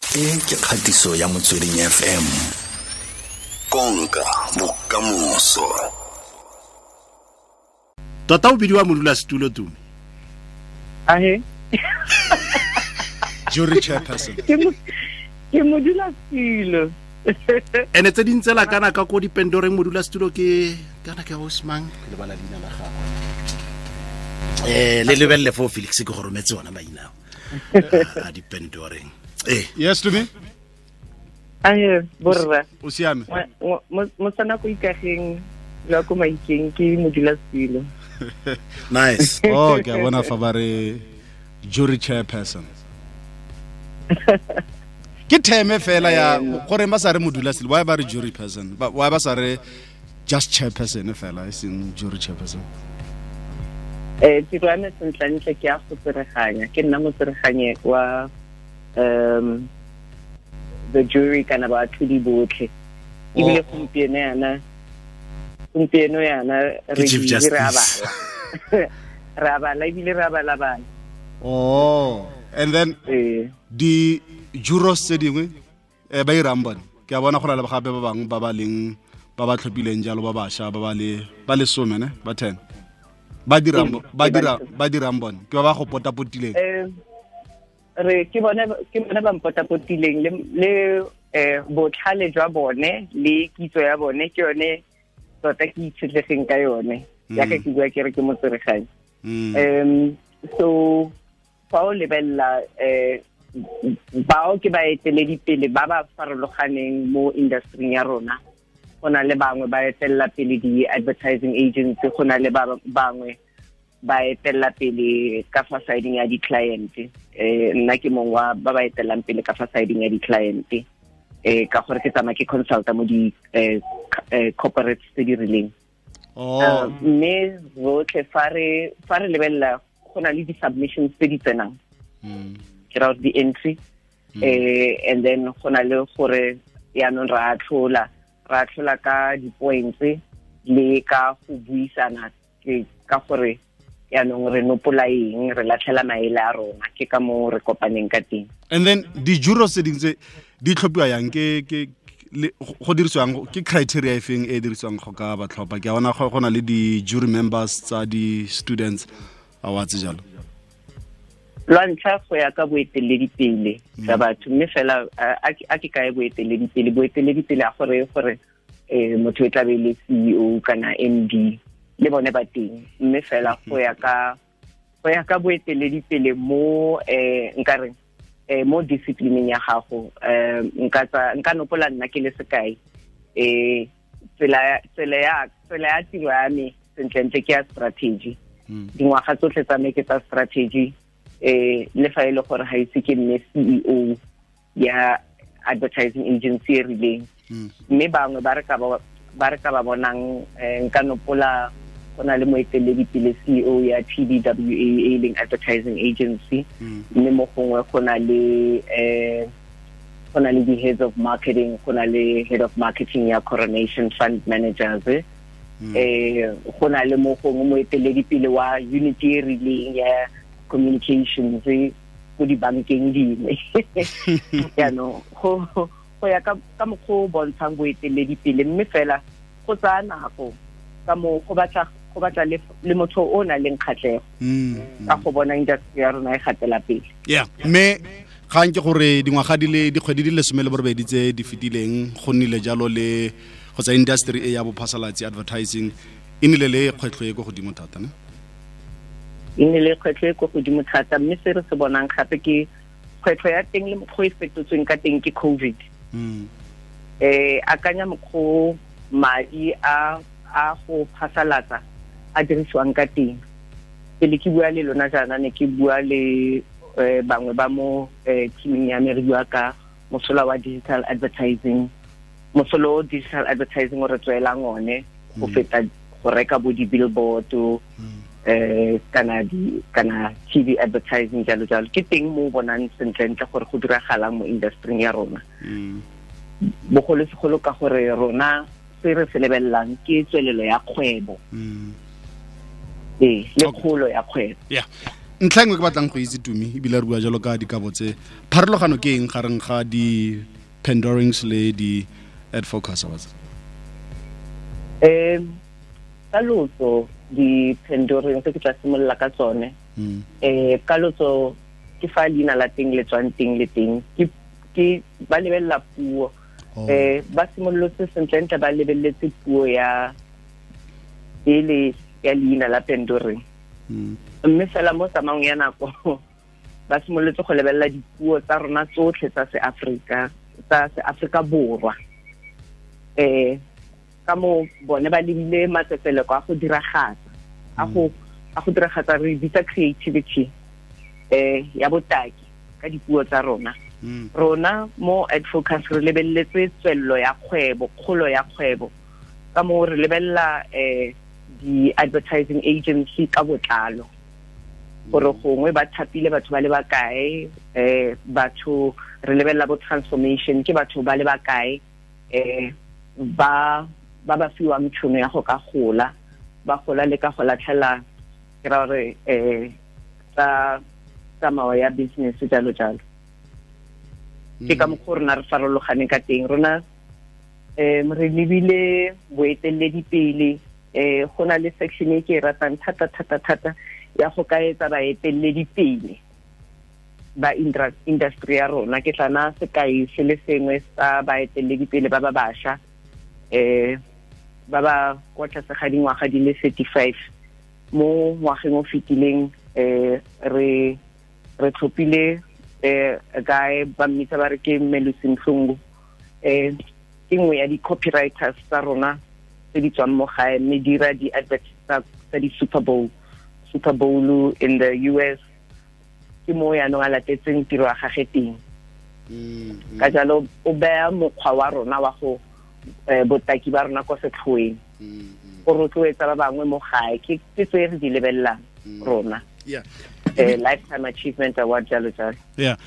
E ke kgatiso ya Motsweding FM. Konka bokamoso. Tota o bidiwa modulasetulo, Tumi? Ahe. Jury chairperson. Ke modulasetulo. Ene tse dintse la kana ka ko dipendoreng, modulasetulo ke kana ke Osman, ke lebala leina la gagwe. Le lebelele fo Felix, ke go rometse ona maina a dipendoreng. Yes, Tumi. Ahe, borra. O siame? Mo sana go ikageng la ko maikeng, ke modulasetulo. Nice. Oh, ke a bona fa ba re jury chairperson. Ke theme fela ya gore ba sa re modulasetulo, why ba re jury person? Why ba sa re just chairperson fela, e seng jury chairperson? Tiro ya me sentlentle ke ya go tsereganya, ke nna motsereganye wa the jury kana baatlhodi botlhe. Ebile gompieno yana re Chief re a Justice. bala, re a bala ebile re a bala bala. Oh, and then di jurors tse dingwe ba irang bone? Ke a bona go na le gape ba bangwe ba ba leng ba ba tlhophileng jalo, ba bašwa ba ba le ba lesome ne ba 10 ba dirang ba dirang bone? Ke ba ba go potapotileng? Re ke bone ba mpotapotileng le botlhale jwa bone le kitso ya bone ke yone tota ke itshetlegeng ka yone, jaaka ke bua ke re ke motsereganyi. So fa o lebelela bao ke baeteledipele ba ba farologaneng mo industry ya rona. Go na le bangwe ba etelela pele di-advertising agency, go na le ba bangwe ba etelela pele ka fa sideng ya di-client. Nna ke mongwe wa ba ba etelelang pele ka fa sideng ya di-client, ka gore ke tsamaya ke consulta mo di corporates tse di rileng. Mme rotlhe fa re lebelela, go na le di-submissions tse di tsenang, ke ra gore di-entry, and then go na le gore yaanong re atlhola ka di-points le ka go buisana, ke ka gore yaanong re nopola eng, re latlhela maele a rona, ke ka mo re kopaneng ka teng. And then di-jurors tse dingwe tse di tlhophiwa yang? Ke go dirisiwang, ke criteria e feng e e dirisiwang go ka ba tlhopha? Ke a bona go na le di-jury members tsa di-students awards jalo. Lwa ntlha, go ya ka boeteledipele jwa batho, mme fela a ke kae boeteledipele? Boeteledipele a gore motho e tlabe e le CEO kana MD, le bone ba teng, mme fela go ya ka boeteledipele mo nka reng mo disciplineng ya gago. Nka tsa nka nopola nna ke le sekai, tsela ya tiro ya me sentlentle ke ya strategy. Dingwaga tsotlhe tsa me ke tsa strategy, le fa e le gore ga ise ke nne CEO ya advertising agency e rileng. Mme bangwe ba re ka ba bonang, nka nopola go na le moeteledipele CEO ya TBWA e leng advertising agency, mme mo gongwe go na le di-heads of marketing, go na le head of marketing ya Coronation Fund Managers, go na le mo gongwe moeteledipele wa unit e rileng ya communications ko dibankeng dingwe. Jaanong go ya ka mokgwa o bontshang boeteledipele, mme fela go tsaya nako ka mo go batla le motho o nang le kgatlhego ka go bona industry ya rona e gatela pele. Yeah, mme gang ke gore dingwaga di le dikgwedi di le 18 tse di fetileng go nnile jalo le kgotsa industry e ya bophasalatsi, advertising, e nnile le kgwetlho e ko godimo thata ne? E nne le kgwetlho e ko godimo thata, mme se re se bonang gape ke kgwetlho ya teng le mokgwa e fetotsweng ka teng ke COVID. Akanya mokgwa o madi a go phasalatsa a dirisiwang ka teng. Pele ke bua le lona jaana, ne ke bua le bangwe ba mo teaming ya me, re bua ka mosola wa digital advertising, mosola o digital advertising o re tswelang one go feta go reka bo di-billboard kana TV advertising, jalo jalo. Ke teng mo o bonang sentlentle gore go diragalang mo industry ya rona, bogolosegolo ka gore rona se re se lebelelang ke tswelelo ya kgwebo, ee, le kgolo ya kgwebo. Yeah. Ntlha engwe ke batlang go itse Tumi ebile re bua jalo ka dikabo tse, pharologano ke eng gareng ga di Pandorings le di AdFocus Awards? Ka lotso di Pandorings ke tla simolola ka tsone. Ka lotso ke fa leina la teng le tswang teng le teng ke ba lebelela puo. Ba simolotse sentlentle ba lebeletse puo ya ele ya leina la Pandoring. Mme fela mo tsamaong ya nako ba simolotse go lebelela dipuo tsa rona tsotlhe tsa seAfrika, tsa seAfrika Borwa. Ka mo bone ba lebile matsetseleko a go diragatsa, a go diragatsa re bitsa creativity ya botaki ka dipuo tsa rona. Rona mo AdFocus re lebeletse tswello ya kgwebo, kgolo ya kgwebo. Ka mo re lebelela di-advertising agency ka botlalo, gore gongwe ba thapile batho ba le bakae, batho re lebelela bo transformation ke batho ba le bakae, ba ba fiwang tšhono ya go ka gola, ba gola le ka go latlhela ke ra gore tsa tsamao ya business jalo jalo. Ke ka mokgwa rona re farologaneng ka teng. Rona re lebile boeteledipele. Go na le section e ke e ratang thata thata thata ya go ka etsa baeteledipele ba industry ya rona. Ke tla naya sekai se le sengwe sa baeteledipele ba ba bašwa, ba ba kwa tlase ga dingwaga di le 35. Mo ngwageng o fetileng re tlhophile guy ba mmitsa ba re ke Melusi Mhlungu. Ke nngwe ya di-copywriters tsa rona tse di tswang mo gae, mme dira di-adverts tsa di-Super Bowl, Super Bowl in the US. Ke mo yaanong a latetseng tiro ya gage teng. Ka jalo o beya mokgwa wa rona wa go botaki ba rona kwa setlhoeng, go rotloetsa ba bangwe mo gae. Ke tse re di lebelelang rona. Lifetime Achievement Award jalo jalo. Yeah.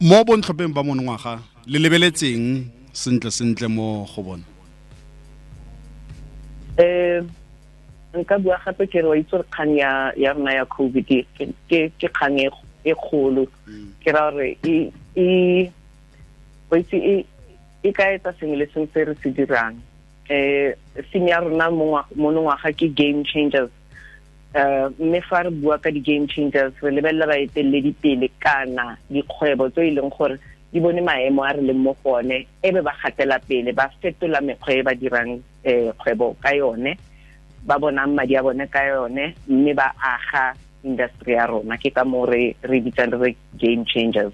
Mo bontlhopheng ba monongwaga le lebeletseng sentle sentle mo go bona? Nka bua gape ke re wa itse gore kgang ya rona ya COVID ke kgang e kgolo. Ke ra gore e ka etsa sengwe le sengwe se re se dirang. Theme ya rona monongwaga ke game changers. Mme fa re bua ka di-game changers re lebelela baeteledipele kana dikgwebo tse e leng gore di bone maemo a re leng mo go one, e be ba gatela pele, ba fetola mekgwa e ba dirang kgwebo ka yone, ba bonang madi a bone ka yone, mme ba aga industry ya rona. Ke ka moo re bitsang re game changers.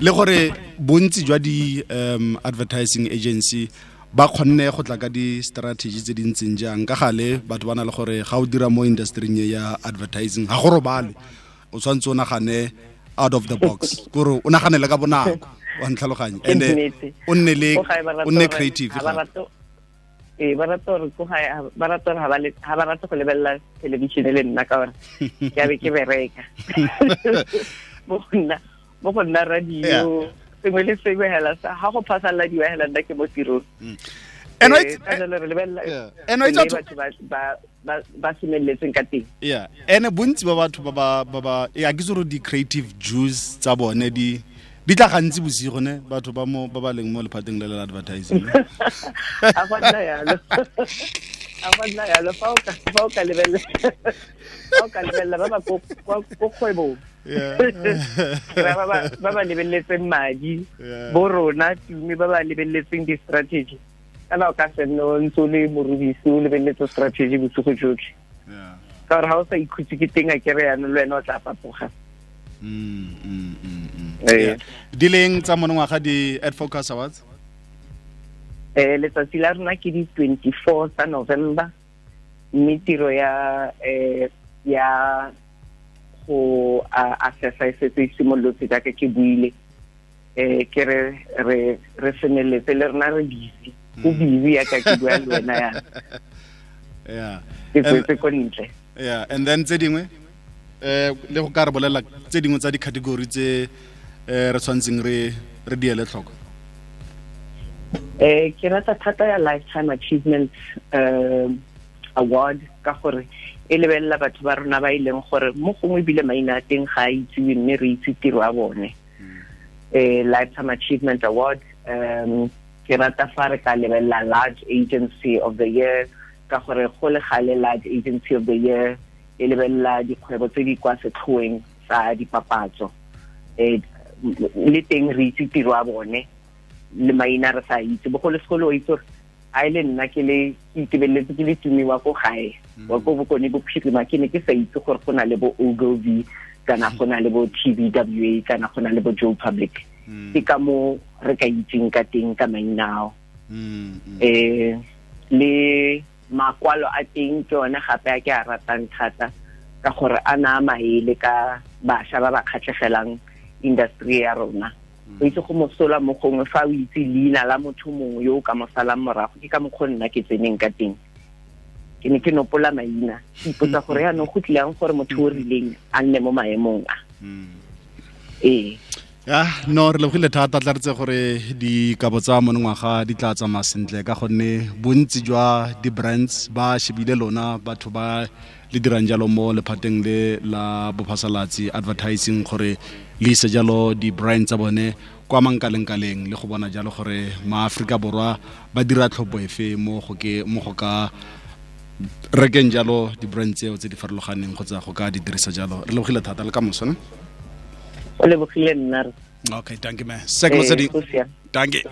Le gore bontsi jwa di advertising agency ba kgonne go tla ka di-strategy tse di ntseng jang? Ka gale batho ba na le gore ga o dira mo industry-ing ya advertising ga go robale, o tshwanetse o nagane out of the box, kore o naganele ka bonako, wa ntlhaloganye, and o nne creative. Ba rata gore ba rata gore ha ba rata go lebelela television le nna ka gore ke a be ke bereka. Mo go nna radio sengwe le sengwe hela sa ha go phasaladiwa hela nna ke mo tirong. Re lebelela batho ba semeletseng ka teng. Yeah, ene bontsi ba batho ba ba ya ke tsoro di creative juice tsa bone di tla gantsi bosigo ne, batho ba mo ba ba leng mo lephateng le la advertising. A go nna yalo. A go nna yalo fa o ka lebelela ba ba ko kgwebong. Ba ba lebeletseng madi, bo rona Tumi ba ba lebeletseng di-strategy. Kana o ka se nne o ntse o le morubisi o lebeletse strategy bosigo jotlhe. Ka gore ga o sa ikhutse ke teng a kere yanong le wena o tla fapoga. Di leng tsa monongwaga di AdFocus Awards? Letsatsi la rona ke di 24 tsa November, mme tiro ya go assessa e setse e simolotse jaaka ke buile. Ke re re semeletse le rona re busy. Go busy yaka ke bua le wena yana. Yeah. Ke tswetse ko ntle. Yeah, and then tse dingwe le go ka re bolela tse dingwe tsa di-category tse re tshwantseng re di ele tlhoko? Ke rata thata ya Lifetime Achievement Award ka gore E lebelela batho ba rona ba e leng gore mo gongwe ebile maina a teng ga a itsiwe, mme re itse tiro ya bone. Lifetime Achievement Award, ke rata fa re ka lebelela Large Agency of the Year, ka gore go le gale Large Agency of the Year e lebelela dikgwebo tse di kwa setlhoeng tsa dipapatso. Le teng re itse tiro ya bone, le maina re sa itse. Bogolosegolo o itse gore a e le nna ke le ke itebeletse ke le tumiwa ko gae wa ko Bokone Bophirima, ke ne ke sa itse gore go na le bo Ogilvy, kana go na le bo TBWA, kana go na le bo Joe Public. Ke ka mo re ka itseng ka teng ka maina ao. Le makwalo a teng ke one gape a ke a ratang thata, ka gore a na maele ka bašwa ba ba kgatlhegelang industry ya rona. O itse go mosola mo gongwe fa o itse leina la motho mongwe yo o ka mo salang morago. Ke ka mokgwa nna ke tseneng ka teng, ke ne ke nopola maina, ke ipotsa gore yaanong go tlileng gore motho o rileng a nne mo maemong a. Ee. Ya, no, re lebogile thata. Tla re tse gore dikabo tsa monongwaga di tla tsamaya sentle, ka gonne bontsi jwa di-brands ba shebile lona batho ba le dirang jalo mo lephateng le la bophasalatsi, advertising, gore le ise jalo di-brand tsa bone kwa mankalengkaleng, le go bona jalo gore maAforika Borwa ba dira tlhopho efe mo go ka rekeng jalo di-brand tseo tse di farologaneng kgotsa go ka di dirisa jalo. Re lebogile thata, le ka moso ne. O lebogile nna. Okay, thank you, man. Sek Motsweding. Go siame. Dankie.